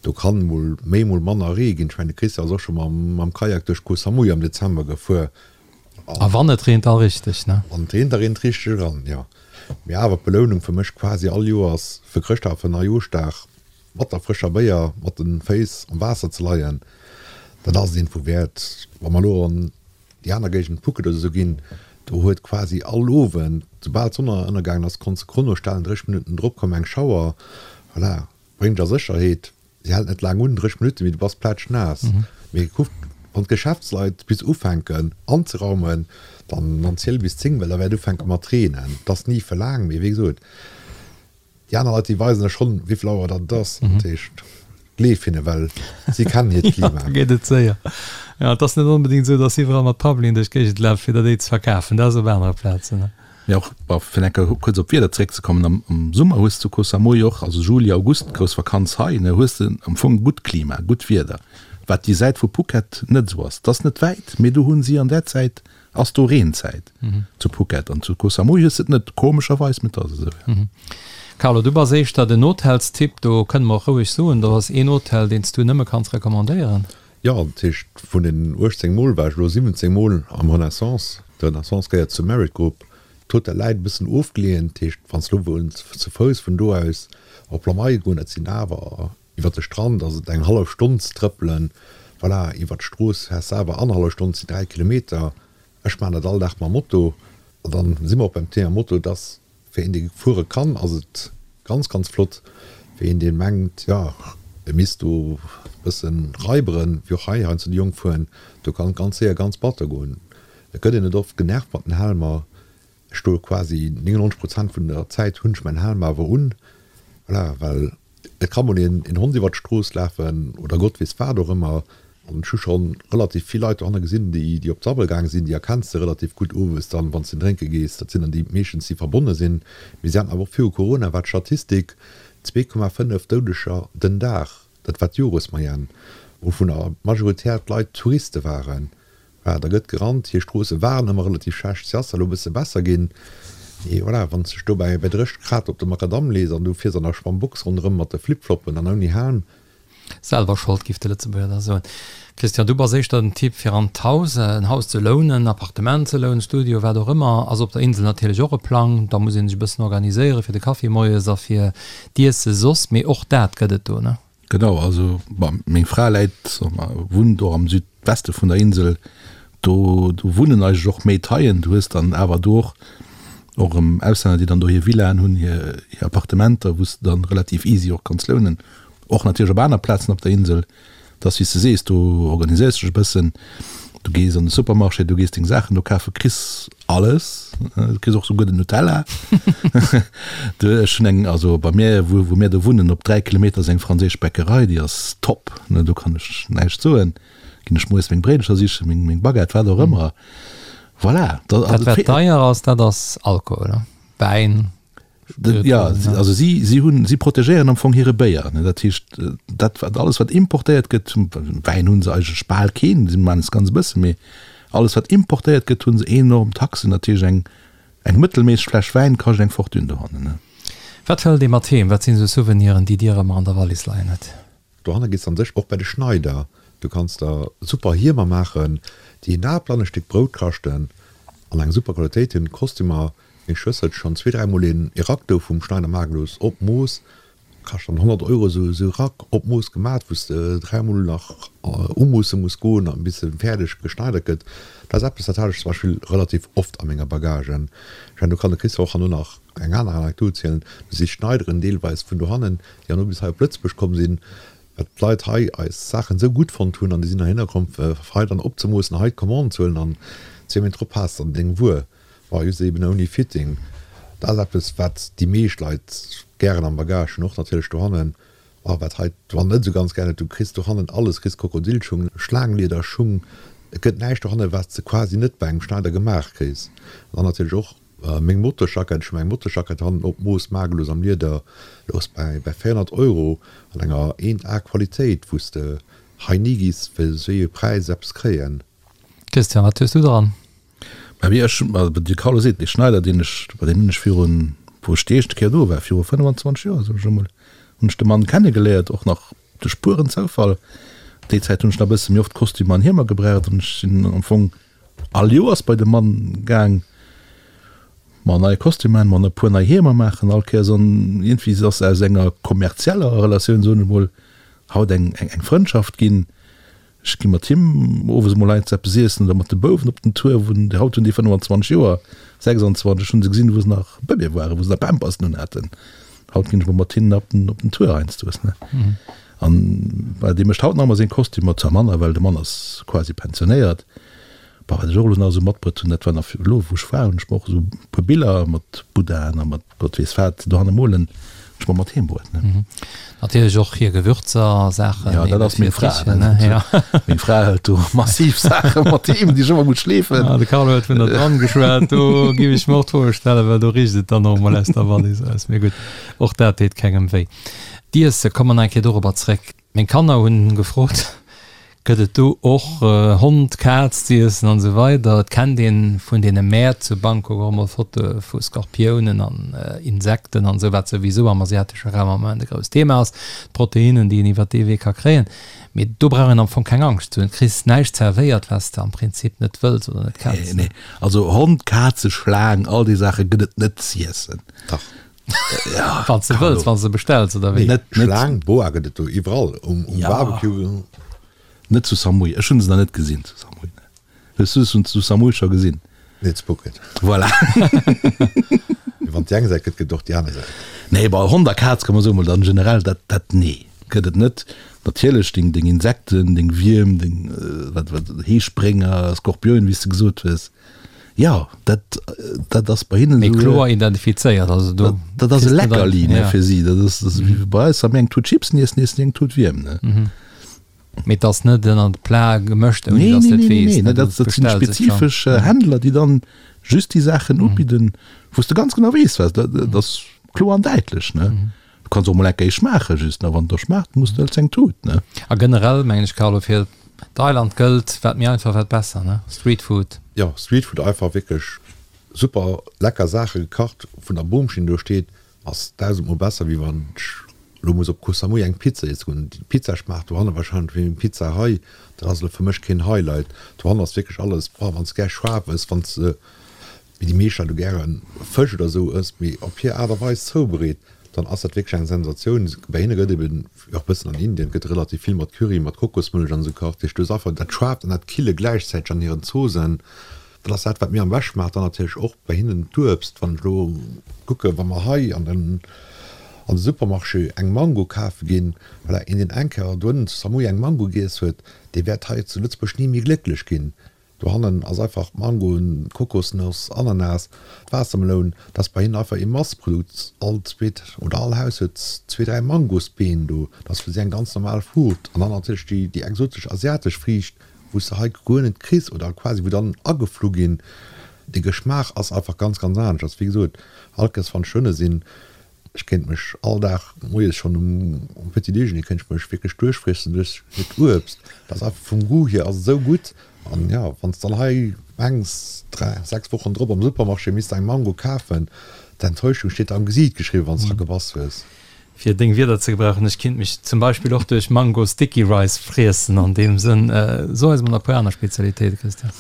do kann mol méi, mol manner Ree ginn. Ech mengen, de Christian ass och scho mam Kajak duerch Koh Samui am Dezember gefuer. A wann et reent, da richteg, ne? Wann et reent, da reent et richteg eran, jo. Mee awer d'Belounung fir mech quasi all Joers fir Chrëschtdag a fir Neijooschdag mat der frëscher Béier mat de Féiss am Waasser ze leien, dat ass et iergendwou wäert. Wa mer elo an déi aner Géigend Phuket oder esou ginn, do huet quasi all Owend, soubal d'Sonn ënnergaangen ass, konns de Chrono stellen, 30 Minutten drop koum eng Schauer, voilà, bréngt dech a Sécherheet, se hält net laang un, 30 Minutten, mee du bass plätschnaass. Mee kuck, wann d'Geschäftsleit bis ufänken anzeraumen, dann dann ziel bis 10, well da wäert ufänke mat reenen. Et ass ni fir laang, mee wéi gesot, Déi aner Leit, déi weisen der schonn, wéi vill Auer datt et ass. Dat heescht, gleef hinne, well si kennen hiert Klima. Da geet et séier. Jo, et ass net onbedéngt esou, datt iwwerall mat Pavillon duerch d'Géigend lafen, fir der déi ze verkafen. Dat ass op anere Plazen. Mee och, bon, fir eng Kéier kuerz op d'Wieder zeréckzekommen, am, am Summer hues de zu Koh Samui och, also Juli, August, grouss Vakanz hei, ne, hues de am Fong gutt Klima, gutt Wieder, wat déi Säit vu Phuket net esou ass. Et ass net wäit, mee do hu si an där Zäit. Ass do Reenzäit zu Phuket an zu Koh Samui hues de et net, komescherweis, mee et ass esou, jo. Carlo, du bass éischter den Hotelstyp, do kënne mer och roueg soen, do ass een Hotel, deen s du nëmme kanns recommandéieren. Jo, dat heescht, vun den 18 Mol war ech elo 17 Mol am Renaissance. De Renaissance gehéiert zur Marriott Group. D'Hotel läit e bëssen ofgeleeën, dat heescht, wann s de elo wëlls ze Fouss vun do aus op Lamai goen, dat sinn awer Iwwer de Strand ass et eng hallef Stonn ze trëppelen. Voilà, iwwer d'Strooss fäers de awer annerhallef Stonn, et sinn 3 Kilometer. Ech maachen dat all Dag mam Moto. An dann si mer och beim Thema Moto. Et ass fir een, dee fuere kann, ass et ganz, ganz flott. Fir een, dee mengt, jo, e misst do e bëssen raiberen, wéi och hei heiansdo déi Jonk fueren, do kann et ganz séier ganz batter goen. Et gëtt een net oft genervt mat den Helmer. Ech stoe quasi 99 Prozent vun der Zäit hunn ech mäin Helm awer un, voilà, well et ka mol een een Hond iwwer d'Strooss lafen oder Gott weess wat och ëmmer. An ech hu scho relativ vill Leit dohanne gesinn, déi déi op d'Sabbel gaang sinn, déi erkenns de relativ gutt owes dann, wann s de drénke gees. Dat sinn dann déi meeschtens, déi verbonne sinn. Mee si haten awer och viru Corona war d'Statistik 2,5 Doudeger den Dag, dat war d'Joresmoyenne, wouvunner majoritär d'Leit Touriste waren. Voilà, da gëtt gerannt. Hir Stroosse waren ëmmer relativ schlecht, se ass elo e bësse besser ginn. Mee voilà, wann s de dech do bäi 30 Grad op de Makadamm lees an du fiers an der Schwammbox ronderëm mat de Flipfloppen an ouni Helm. Selwer Schold, giff de Lëtzebuerger da soen. Christian, du bass éischter den Typ fir an d'Haus, en Haus ze lounen, en Appartement ze lounen, Studio, wat och ëmmer. Ass op der Insel natierlech och e Plang. Da muss ee sech e bëssen organiséieren fir de Kaffi moies a fir d'Iesse soss. Mee och dat gëtt et do, ne? Genau, also bon, meng Fra läit, wunnt och am Südweste vun der Insel, do do wunnen eigentlech och méi Thaien. Du hues dann awer do och och erëm Auslänner, déi dann do hir Villaen hunn, hir hir Appartementer, wou s de dann relativ easy och kanns lounen. Och natierlech op aner Plazen op der Insel. Et ass wéi s de sees, do organiséiers de dech e bëssen, du gees an de Supermarché, du gees deng Saachen do kafen, kriss alles, du kriss och souguer den Nutella. Du, ech hunn eng, also bei mir, wou, wou mir do wunnen, op 3 Kilometer ass eng franséisch Bäckerei, déi ass top, ne, do kann ech näischt soen. Ginn ech moies meng Bréidelcher sichen, meng, meng Baguette, wat och ëmmer. Voilà. Dat wat deier ass, dat ass Alkohol, ne? Wäin. Ja, also si, si hunn, si protegéieren am Fong hire Béier. Ne? Dat heescht, dat wat alles wat importéiert gëtt, Wäin hunn se eigentlech bal keen, si maachen es ganz e bësse, mee alles wat importéiert gëtt, hunn se enorm Taxen. Dat heescht eng, eng mëttelméisseg Fläsch Wäin kascht eng Fortune dohannen. Ne? Wat hëlt ee mat heem? Wat sinn esou Souveniren, déi Dir ëmmer an der Wallis leien hutt? Dohanne gees an sech och bei de Schneider. Du kanns der super Hiemer maachen, déi en Apel an e Stéck Brout kaschten an eng super Qualitéit hunn. Kostümer, meng Schwëster huet schonn zwee, dräimol een e Rack do vum Schneider maache gelooss op Mooss, kascht dann 100 Euro esou e Rack op Mooss gemat, wou s de dräimol nach umoosse muss goen an bis e fäerdeg geschneidert gëtt. Dat ass eppes, dat hat ech zum Beispill relativ oft a menger Bagage. Ech mengen, do kann de Christophe och herno nach eng aner Anekdot zielen, do si Schneideren deelweis vun dohannen, déi herno bis hei op Lëtzebuerg komm sinn, well d'Leit hei eis Saachen esou gutt fonnt hunn an déi sinn heihinner komm fir hei dann opzemoossen, hei d'Commande ze huelen an zwee Méint drop has de dann deng Wuer, war just eben ouni Fitting. Dat ass eppes, wat déi meescht Leit gären am Bagage hunn, och natierlech dohannen, a wat hei d'Wann net esou ganz gären huet, du kriss dohannen alles, kriss Krokodilschung, Schlaangliederschung, et gëtt näischt dohannen, wat s de quasi net bei engem Schneider gemaach kriss. An dann natierlech och Meng Motorsjackett, ech hu meng Motorsjackett hannen op Mooss magelos am Lieder, louch bäi bäi 400 Euro an enger 1 A Qualitéit, wou s de hei ni giss fir esou ee Präis eppes kréien. Christian, wat hues du dran? Mä wéi ech, also de Carlo seet, dee Schneider, deen ech, bei deem hunn ech virun, wou ech déi éischte Kéier do war, viru 25 Joer, soen ech emol, hunn ech de Mann kennegeléiert, och nach duerch pueren Zoufall. Déi Zäit hunn ech nach e bësse méi oft Kostümer an Hiemer gebraucht an ech sinn am Fong All Joers bei de Mann gaang, mer nei Kostümer man, e puer nei Hiemer maachen all Kéiers an iergendwéi ass aus enger kommerzieller Relatioun, soen ech mol, haut eng eng Frëndschaft ginn. Ech gi mat him owes emol heiansdo eppes iessen oder mat de Bouwen op den Tour, wou haut hunn déi 25 Joer, 26, ech hunn se gesinn, wou se nach Bëbee waren, wou se nach Pampersen unhaten. Haut ginn ech mol mat hinnen op den op den Tour heiansdo, ne. An well dee mécht haut nach ëmmer seng Kostümer, zwar manner, well de Mann ass quasi pensionéiert. Bon, wat ech och elo nach esou matbruet hunn, dat war nach elo wou ech war, hunn ech mer och esou e puer Biller mat Buddhaen a mat Gott weess wat dohanne molen, hunn ech mer mat heem bruet, ne. Natierlech och hir Gewürzer a Saachen. Jo, dat ass meng Fra, ne. Jo. Meng Fra hëlt do massiv Saache mat heem, déi ech ëmmer muss schleefen. Ah, de Carlo huet vun der Dram geschwat, do giff ech mer och d'Froe stellen, well do richt et dann och emol aus der Wallis aus. Mee gutt, och dat deet kengem wéi. D'Iesse, komme mer nach eng Kéier dorobber zréck. Meng Kanner hunn gefrot, Gëtt et do och Hond, Kaz z'iessen an esou weider? Et kennt een vun deene Mäert zu Bangkok och emol Fotoe vu Skorpiounen an Insekten an esou, wat souwisou am asiatesche Raum am Moment e grousst Thema ass, d'Proteinnen, déi een iwwert dee Wee ka kréien. Mee do brauch een am Fong keng Angscht ze hunn. Du kriss näischt zerwéiert, wat s de am Prinzip net wëlls oder net kenns. Nee, nee. Also Hond, Kaze, Schlaang, all déi Saache gëtt et net z'iessen. Dach. Ja, wann s de wëlls, wann s de bestells, oder wéi? Net, net. Schlaang, Boa gëtt et do iwwerall um, um ja. Barbecue. Net zu Samui. Ech hunn se nach net gesinn zu Samui. Hues du se zu Samui scho gesinn? Nee, zu Phuket. Voilà. Mee wann et déi eng Säit gëtt, gëtt et och déi aner Säit. Nee, bei Hond a Kaz kann man soen, mol dann generell, dat, dat, nee, gëtt et net. Natierlech deng, deng Insekten, deng Wierm, deng, wat, wat, Heesprénger, Skorpionen, wéi s de gesot hues. Jo, dat, dat ass bei hinnen Méi esou. kloer identifizéiert, also do. Dat, dat ass e Leckerli, ne, fir si. Dat ass, dat ass wéi bei eis, wa mir eng Tut Chipsen iessen, iessen si eng Tut Wierm, ne. Mee et ass net ënner de Plat gemëscht, ouni datt s de et weess, ne, du dat sinn spezifesch Händler, déi dann just déi Saachen ubidden, wou s de ganz genau weess, wat, dat ass kloer an däitlech, ne. Du kanns och mol eng Kéier schmaachen, just, ne, wann et der schmaacht, muss de hëls eng Tut, ne. A generell mengen ech, Carlo, fir Thailand gëllt, wat méi einfach, wat besser, ne? Streetfood. Jo, Streetfood einfach wierklech super lecker Saache gekacht vun der Boomschinn do steet, ass dausendmol besser wéi wann ech lo muss op Koh Samui eng Pizza iesse goen. Déi Pizza schmaacht dohanne wahrscheinlech wéi meng Pizza hei, dat ass elo fir mech keen Highlight. Dohannen ass wierklech alles, boah, wann s de gär schaarf ëss, wann s de wéi déi meescht Leit elo gäre Fësch oder esou ësst, mee op hir Aart a Weis zoubereet, dann ass dat wierklech eng Sensatioun. Bei hinne gëtt eben, wéi och e bëssen an Indien, gëtt relativ vill mat Curry, mat Kokosmëllech an esou gekacht. Dat heescht, du hues einfach dat Schaarft an dat Kille gläichzäiteg an hiren Zoosen. Dat ass dat, wat mir am beschte schmaacht. Dann natierlech och bei hinnen d'Uebst. Wann ech elo kucke, wa mer hei an den an de Supermarché eng Mango kafe ginn, voilà, een deen eng Kéier dohennen zu Samui eng Mango giess huet, dee wäert hei zu Lëtzebuerg ni méi glécklech ginn. Dohannen ass einfach Mangoen, Kokosnoss, Ananas, Waassermeloun, dat ass bei hinnen einfach ee Masseprodukt. All zweet oder all Haus huet zwee, dräi Mangosbeen do. Dat ass fir si eng ganz normal Fruucht. An dann natierlech déi, déi exotesch asiatesch Friicht, wou s de hei guer net kriss oder quasi wou dann ageflu ginn. De Geschmaach ass einfach ganz, ganz anescht. Wéi gesot, all Kéiers wann ech dohinne sinn, Ech kéint mech all Dag moies schonn um Petit Déjeuner kéint ech mech wierklech duerchfriessen duerch hiert Uebst. Dat ass einfach vum Goût hier ass et esou gutt. An jo, wann s dann hei mengs 3, 6 Wochen drop am Supermarché misst eng Mango kafen, d'Enttäuschung steet der am Gesiit geschriwwen, wann s dra gebass hues. Fir deng Wierder ze gebrauchen, ech kinnt mech zum Beispill och duerch Mango Sticky Rice friessen an deem Sënn. So eis mol nach e puer aner Spezialitéiten, Christian.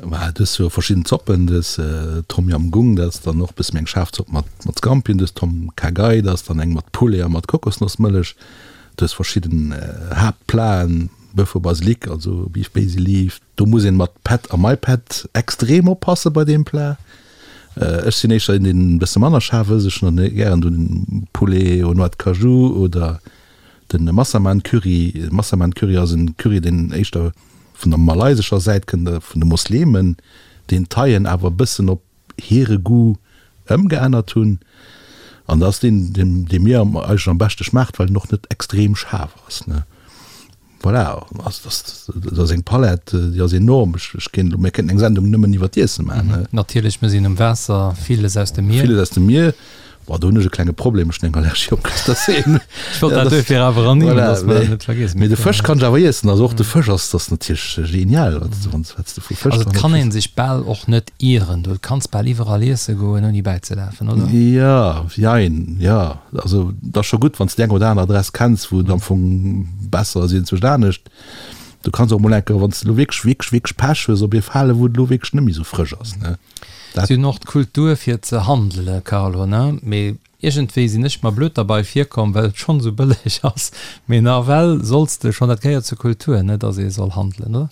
Mä du hues jo verschidden Zoppen, du hues Tom Yam Goong, dat ass dann och e bësse méi eng schaarf Zopp mat mat Scampien, du hues Tom Kha Gai, dat ass dann eng mat Poulet a mat Kokosnossmëllech, du hues verschidden Haaptplaten, Boeuf au basilic, also Beef Basil Leaf, do muss een mat Pad a Mai Pad extrem oppasse bei deem Plat. Ech sinn éischter een, deen e bësse manner schaarf ësst, ech hunn dann gären den Poulet aux noix de cajou oder den Massaman Curry. Massaman Curry ass en Curry, deen éischter vun der malaysescher Säit kënnt, vun de Moslemen, deen d'Thaien awer e bëssen op hire Goût ëmgeännert hunn. An dat ass deen, dee mir eigentlech am beschte schmaacht, well en och net extrem schaarf ass. Voilà, dat ass eng Palett, déi ass enorm. Ech kéint elo, mir kéinten eng Sendung nëmmen iwwer d'Iesse maachen. Natierlech, mir sinn um Waasser, villes aus dem Mier. Villes aus dem Mier. Boah, do hunn ech e klenge Problem, ech hunn eng Allergie op Crustacéen. Ech wollt dat duerfir awer ernimmen, Voilà, dass mer dat net vergiessen. Mee de Fësch kann ech awer iessen. Also och de Fësch ass, ass natierlech genial, wat s de, wat s de vu Fësch Also et kann ee sech bal och net ieren, du kanns bal iwwerall iesse goen ouni bäizelafen, oder? Jo, jein, jo. Also et ass scho gutt, wann s de déi eng oder aner Adress kenns, wou et am Fong besser ass iergendwou anescht. Du kanns och mol eng Kéier, wann s de elo wierklech, wierklech, wierklech Pech hues, op ee fale wou et elo wierklech net méi esou frësch ass, ne. Dat. Si hunn och d'Kultur fir ze handele, Carlo, ne? Mee iergendwéi sinn ech mer blöd derbei virkomm, well et schonn esou bëlleg ass. Mee nawell solls de schonn, dat gehéiert zur Kultur, ne, dass ee soll handelen, oder?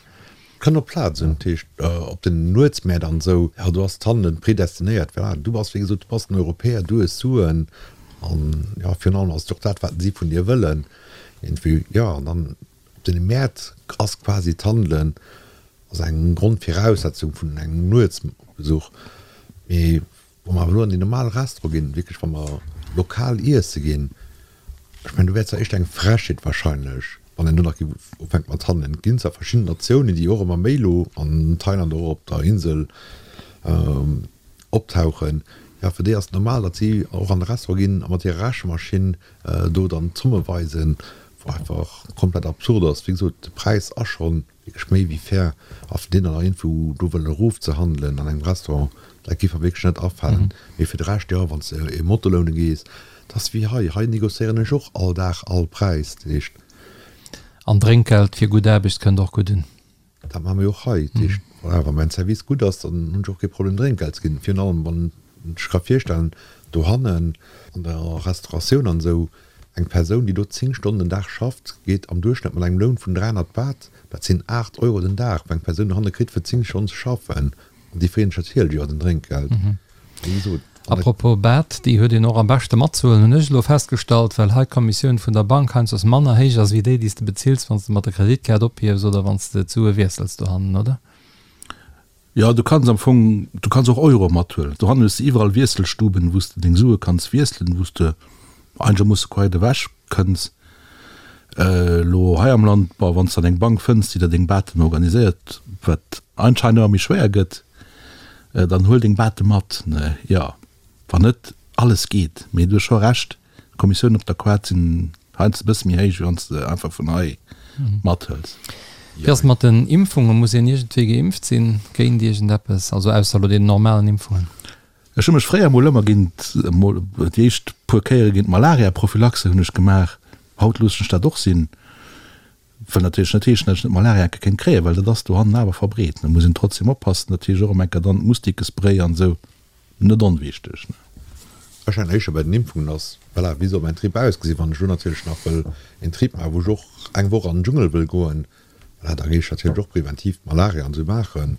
Kënnt op d'Plaz un, dat heescht op den Nuetsmäert an esou, jo do ass d'Handelen predestinéiert. Voilà, du bass wéi gesot, du bass den Europäer, du hues Suen an jo virun allem ass et och dat wat si vun dir wëllen iergendwéi, jo an dann op den Mäert ass quasi d'Handelen ass eng Grondviraussetzung vun engem Nuetsbesuch. Mee wa mer awer elo an déi normal Restaurante ginn, wierklech wa mer lokal iesse ginn, ech mengen do wär zwar éischter eng Frechheet wahrscheinlech, wann een do nach géif ufänke mat handelen. Et ginn zwar verschidden Natiounen, déi och ëmmer méi elo an Thailand, och op der Insel optauchen. Jo, fir déi ass et normal, datt si och an de Restaurant ginn a mat hirer Rechemaschinn do dann d'Zomme weisen. Wou einfach komplett absurd ass. Wéi gesot, de Präis ass schonn wierklech méi wéi fair. A fir deen dann nach iergendwou do wëllen erofzehandelen an engem Restaurant, dat géif mer wierklech net afalen. Mee fir de Rescht, jo, wann s de e Motto loune gees, dat ass wéi hei. Hei négociéieren ech och all Dag all Präis. Dat heescht. An Drénkgeld fir gutt Aarbecht kënnt och gutt un. Dat maache mir jo och hei. Dat heescht, voilà, wa mäin Service gutt ass, dann hunn ech och kee Problem Drénkgeld ze ginn. Virun allem wann ech ka virstellen, dohannen an der Restauratioun an esou, eng Persoun, déi do 10 Stonnen den Dag schafft, geet am Duerchschnëtt mat engem Loun vun 300 Baht, dat sinn 8 Euro den Dag, wou eng Persoun dohanne kritt fir 10 Stonnen ze schaffen. An déi freeën sech natierlech iwwer den Drénkgeld. Wéi gesot, an der. Apropos Baht, déi huet een och am beschte matzehuelen, hunn ech elo festgestallt, well hei d'Kommissioun vun der Bank heiansdo manner héich ass wéi déi, déi s de bezills, wann s de mat der Kreditkaart ophiefs oder wann s de d'Sue wiessels dohannen, oder? Jo, du kanns am Fong, du kanns och Euro mathuelen. Dohannen hues de iwwerall Wiesselstuben, wou s de deng Sue kanns wiesselen, wou s de einegermoosse quite ewech kënns. Elo hei am Land, bon, wann s de dann eng Bank fënns, déi der deng Baten organiséiert, wat anscheinend ëmmer méi schwéier gëtt, dann huel deng Bate mat, ne? Jo, wann net, alles geet. Mee du hues scho Recht, D'Kommissiounen op der Quad sinn heiansdo e bësse méi héich, wéi wann s de einfach vun hei mathëls. Wéi ass et mat den Impfungen? Muss een iergendwéi geimpft sinn géint iergendeppes, also ausser elo deenen normalen Impfungen? Ech hu mech fréier mol ëmmer géint, mol déi éischt puer Kéiere géint Malaria-Prophylaxe hunn ech gemaach. Haut loossen ech dat och sinn. Wëll natierlech net heeschen, datt ech net Malaria enke kéint kréien, well dat ass dohannen awer verbreet. Da muss een trotzdem oppassen. Dat heescht och ëm enker dann Mustikespray an esou, net onwichteg. Ech mengen éischter bei den Impfungen ass, voilà, wéi soll mäin Trip ausgesinn? Wann ech elo natierlech nach wëll een Trip maachen, wou ech och eng Woch an den Dschungel wëll goen, voilà, da géif ech natierlech och präventiv d'Malaria an esou maachen.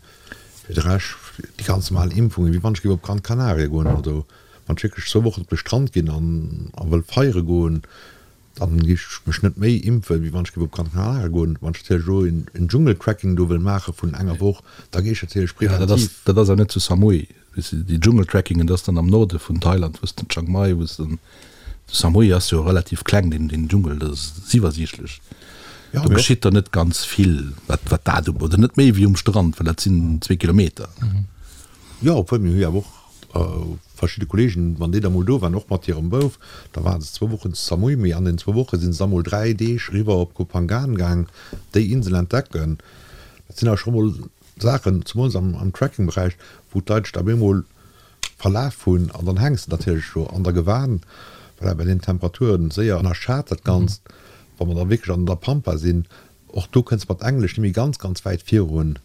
Fir de Rescht, déi ganz normal Impfungen, wéi wann ech géif op Gran Canaria goen oder wann ech wierklech zwou Wochen op de Strand ginn an a wëll feiere goen, Dann gi ech mech net méi impfen, wéi wann ech géif op Gran Canaria goen. Wann ech natierlech elo en Dschungeltrekking do wëll maache vun enger Woch, da géif ech natierlech Ja, dat ass, preventiv. dat ass awer net zu Samui. Weess de, déi Dschungeltrekkingen, dat ass dann am Norde vun Thailand, wou s de Chiang Mai, wou s de, Samui ass jo relativ kleng, deen, deen Dschungel, dat ass iwwersiichtlech. Ja, Do mee och. geschitt der net ganz vill, wat, wat dat u, oder net méi wéi um Strand, well dat sinn zwee Kilometer. Jo, obwuel mir hu jo awer och verschidde Kollegen, wann déi da mol do waren, och mat hirem Bouf, da ware se zwou Wochen zu Samui, mee an den zwou Woche si se da mol 3 Deeg eriwwer op Koh Phangan gaang, déi Insel entdecken. Dat sinn awer scho mol Saachen, zemools am Trekking-Beräich, wou d'Leit sech da op eemol verlaf hunn an dann hänks de natierlech do an der Gewan, voilà, bei den Temperaturen séier ënnerschat dat Ganzt, wa mer da wierklech an der Pampa sinn. Och do kënns mat Englesch nemmi ganz ganz wäit virun.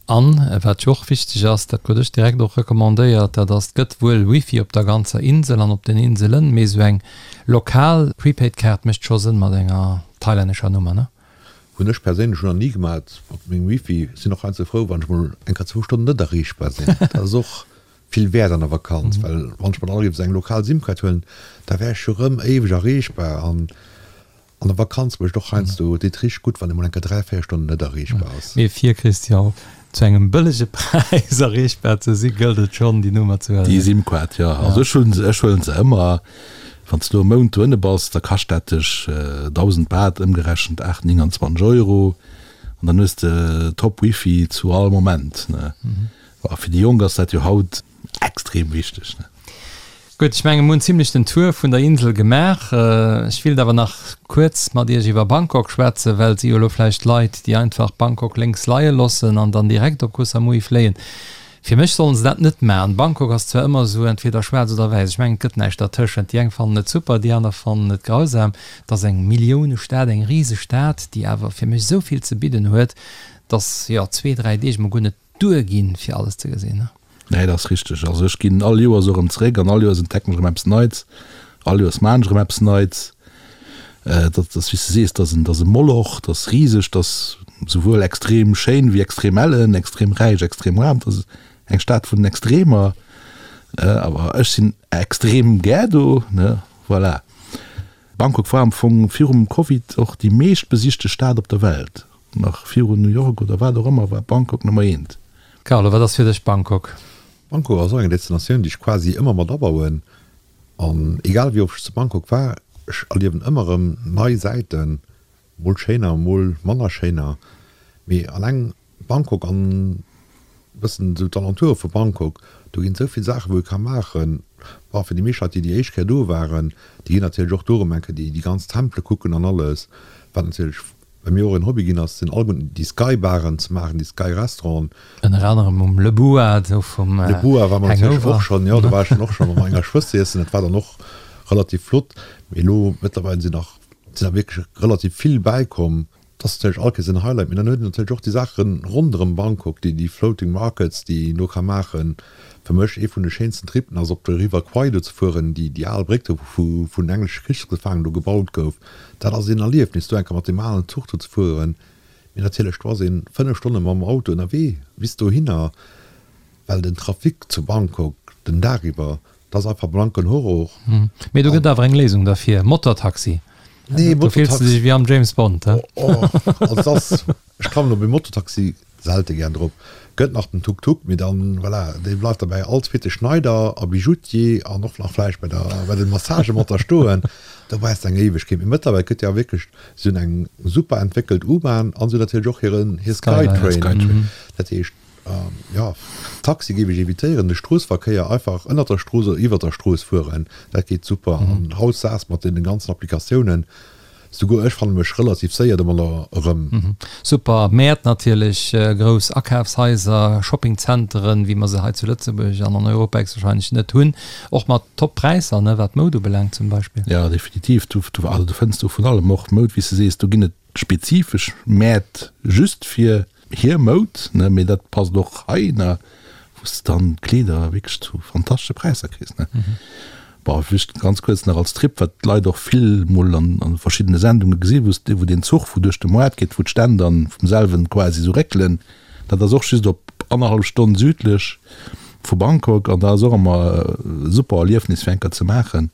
An wat jo och wichteg ass, dat krut ech direkt och recommandéiert, dat ass, et gëtt wuel Wifi op der ganzer Insel an op den Inselen, mee esou eng lokal Prepaid-Kaart mécht scho Sënn mat enger thailännescher Nummer, ne? Hunn ech perséinlech nach ni gemat mat mengem Wifi. Sinn och heiansdo frou, wann ech mol eng Kéier zwou Stonnen net erreechbar sinn. Dat ass och vill wäert an der Vakanz, well wann ech mer dann géif esou eng lokal Sim-Kaart huelen, da wär ech jo rëm éiweg erreechbar an An der Vakanz mécht och heiansdo deet richteg gutt, wann ee mol eng Kéier 3, 4 Stonnen net erreechbar ass. Mee fir, Christian, zu engem bëllege Präis erreechbar ze si, gëllt et schonn, déi Nummer ze huelen. Déi Sim-Kaart, jo. Also ech hunn se, ech huelen se ëmmer. Wann s de elo e Mount dohinne bass, da kascht dat dech 1.000 Baht, ëmgerechent 8, 29 Euro. An dann hues de top Wifi zu all Moment, ne. A fir déi Jonk ass dat jo haut extrem wichteg, ne. Gutt, ech mengen, mir hunn zimlech den Tour vun der Insel gemaach. Ech willt awer nach kuerz mat Iech iwwer Bangkok schwätzen, well et si jo elo vläicht Leit, déi einfach Bangkok lénks leie loossen an dann direkt op Koh Samui fléien. Fir mech sollen se dat net maachen. Bangkok ass zwar ëmmer esou entweder schwaarz oder wäiss, ech mengen, et gëtt näischt dertëschent. Déi eng fannen et super, déi aner fannen et grausam. Et ass eng Milliounestad, eng Risestad, déi awer fir mech esou vill ze bidden huet, dass, jo, zwee, dräi Deeg mol guer net duer ginn, fir alles ze gesinn. Nee, dat ass richteg. Also ech ginn all Joers och erëm zeréck an all Joers entdecken ech erëm eppes Neits. All Joers maan ech erëm eppes Neits. Dat ass, wéi s de sees, dat ass en, dat ass e Moloch, dat ass riseg, dat ass souwuel extrem schéin wéi extrem ellen, extrem räich, extrem aarm. Dat ass eng Stad vun den Extremer. Awer ech sinn extrem gär do, ne, voilà. Bangkok war am Fong virum Covid och déi meescht besichte Stad op der Welt. Nach virun New York oder wat och ëmmer war Bangkok Nummer eent. Carlo, wat ass fir dech Bangkok? Bangkok ass och eng Destinatioun, déi ech quasi ëmmer mat abauen. An egal wéi oft ech zu Bangkok war, ech erliewen ëmmer erëm nei Säiten, mol schéiner, mol manner schéiner. Mee alleng Bangkok an e bëssen esou d'Alentoure vu Bangkok, do ginn esou vill Saachen, wou ee ka maachen. Bon, fir déi meescht Leit, déi déi éischt Kéier do waren, déi ginn natierlech och do erëm eng Kéier déi ganz Tempele kucken an alles. Wat natierlech bei mir och en Hobby ginn ass, sinn alleguerten déi Sky-Baren ze maachen, déi Sky-Restauranten. Ënner anerem um Le Boa, do vum Hangover. Le Boa war mer natierlech och schonn, jo, do war ech dann och scho mat menger Schwëster iessen. Dat war dann och relativ flott. Mee elo mëttlerweil sinn nach, sinn der wierklech relativ vill bäikomm. Dat ass natierlech all Kéiers en Highlight, mee dann huet een natierlech och déi Saache ronderëm Bangkok, déi déi Floating Markets, déi een do ka maachen. Fir mech ee vun de schéinsten Trippen ass op de River Kwai do ze fueren, déi déi al Bréck do wou vun englesche Krichsgefaangenen do gebaut gouf. Dat ass een Erliefnis do eng Kéier mat deem alen Zuch do ze fueren. Mee natierlech do ass een 5 Stonne mam Auto ënnerwee bis dohinner, well den Trafic zu Bangkok den Dag iwwer, dat ass einfach blanken Horror. Mee do gëtt awer eng Léisung derfir, Motortaxi. Nee, Do fills de dech wéi am James Bond, he? Oh, also dat ass, ech klammen op e Mototaxi selte gär drop. Gëtt nach den Tuk-Tuk, mee dann, voilà, dee bleift da bäi all zweete Schneider a Bijoutier an och nach vläicht bei der, bei de Massagë mat da stoen. Do brauchs de eng Éiwegkeet. Mee mëttlerweil gëtt jo wierklech, si hunn eng super entwéckelt U-Bahn an si hunn natierlech och hiren, hir Skytrain. Dat heescht, Jo, Taxi géif ech evitéieren, de Stroossverkéier einfach ënnert der Strooss oder iwwert der Strooss fueren, dat geet super. An haut SaaS mat deenen ganzen Applikatiounen, souguer ech fanne mech relativ séier domadder erëm. Super Mäert natierlech, grouss Akafshaiser, Shoppingzenteren, wéi mer se hei zu Lëtzebuerg an an Europa héchstwahrscheinlech net hunn, och mat top Präisser, ne, wat Moud ubelaangt zum Beispill. Jo, definitiv, du, also du fënns do vun allem, och Moud, wéi s de sees, do ginn et spezifesch Mäert just fir hir Moud, ne, mee dat passt och hei, ne, wou s de dann Kleeder wierklech zu fantastesche Präisser kriss, ne. Bon, just ganz kuerz nach als Trip, wat d'Leit och vill mol an an verschiddene Sendunge gesi wou s de, wou deen Zuch wou duerch de Moart geet, wou d'Stänn dann vum selwen quasi esou réckelen, dat ass och just op annerhallef Stonn südlech vu Bangkok an dat ass och ëmmer e super Erliefnis fir eng Kéier ze maachen.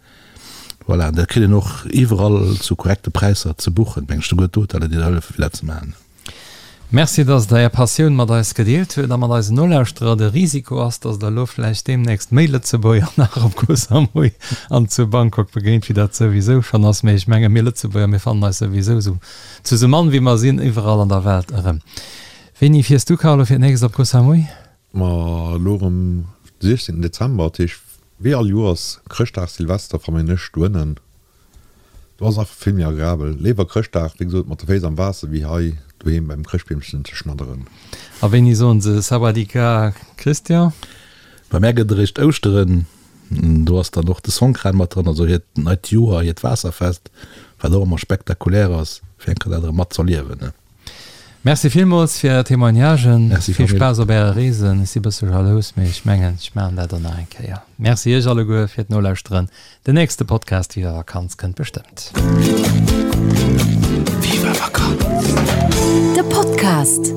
Voilà, dat kritt een och iwwerall zu korrekte Präisser ze buchen, meng ech, souguer d'Hoteller déi der hëllefen fir dat ze maachen. Merci, dass Der Är Passioun mat eis gedeelt huet a mat eisen Nolauschterer. De Risiko ass, dass Der elo vläicht deemnächst méi Lëtzebuerger nach op Koh Samui an zu Bangkok begéint, wéi dat souwisou schonn ass. Mee ech menge mir Lëtzebuerger, mir fannen eis souwisou esou zu sou mann wéi mer sinn iwwerall an der Welt erëm. Wéini fiers du, Carlo, fir d'nächst op Koh Samui? Ma elo erëm de 16 Dezember, dat heescht wéi all Joers Chrëschtdag, Silvester verméin ech doënnen. Do ass et einfach vill méi agreabel. Léiwer Chrëschtdag, wéi gesot, mat de Féiss am Waasser wéi hei doheem beim Chrëschtbeemchen ze schnadderen. A wéini soen se Sawadika, Christian? Bei mär gëtt eréischt Ouschteren, do ass dann och de Songkran mat dran, also hiert neit Joer, hiert Waasserfest, wat och ëmmer spektakulär ass, fir eng Kéier dat erëm mat z'erliewen. Merci villmools fir är Témoignagen. Merci Vill Spaass op äre Reesen. Ech si bësse jalous, mee ech mengen, ech maachen dat och nach eng Kéier. Merci iech alleguer fir d'Nolauschteren. Den nächste Podcast Viva Vakanz kënnt bestëmmt. Viva Vakanz. De Podcast.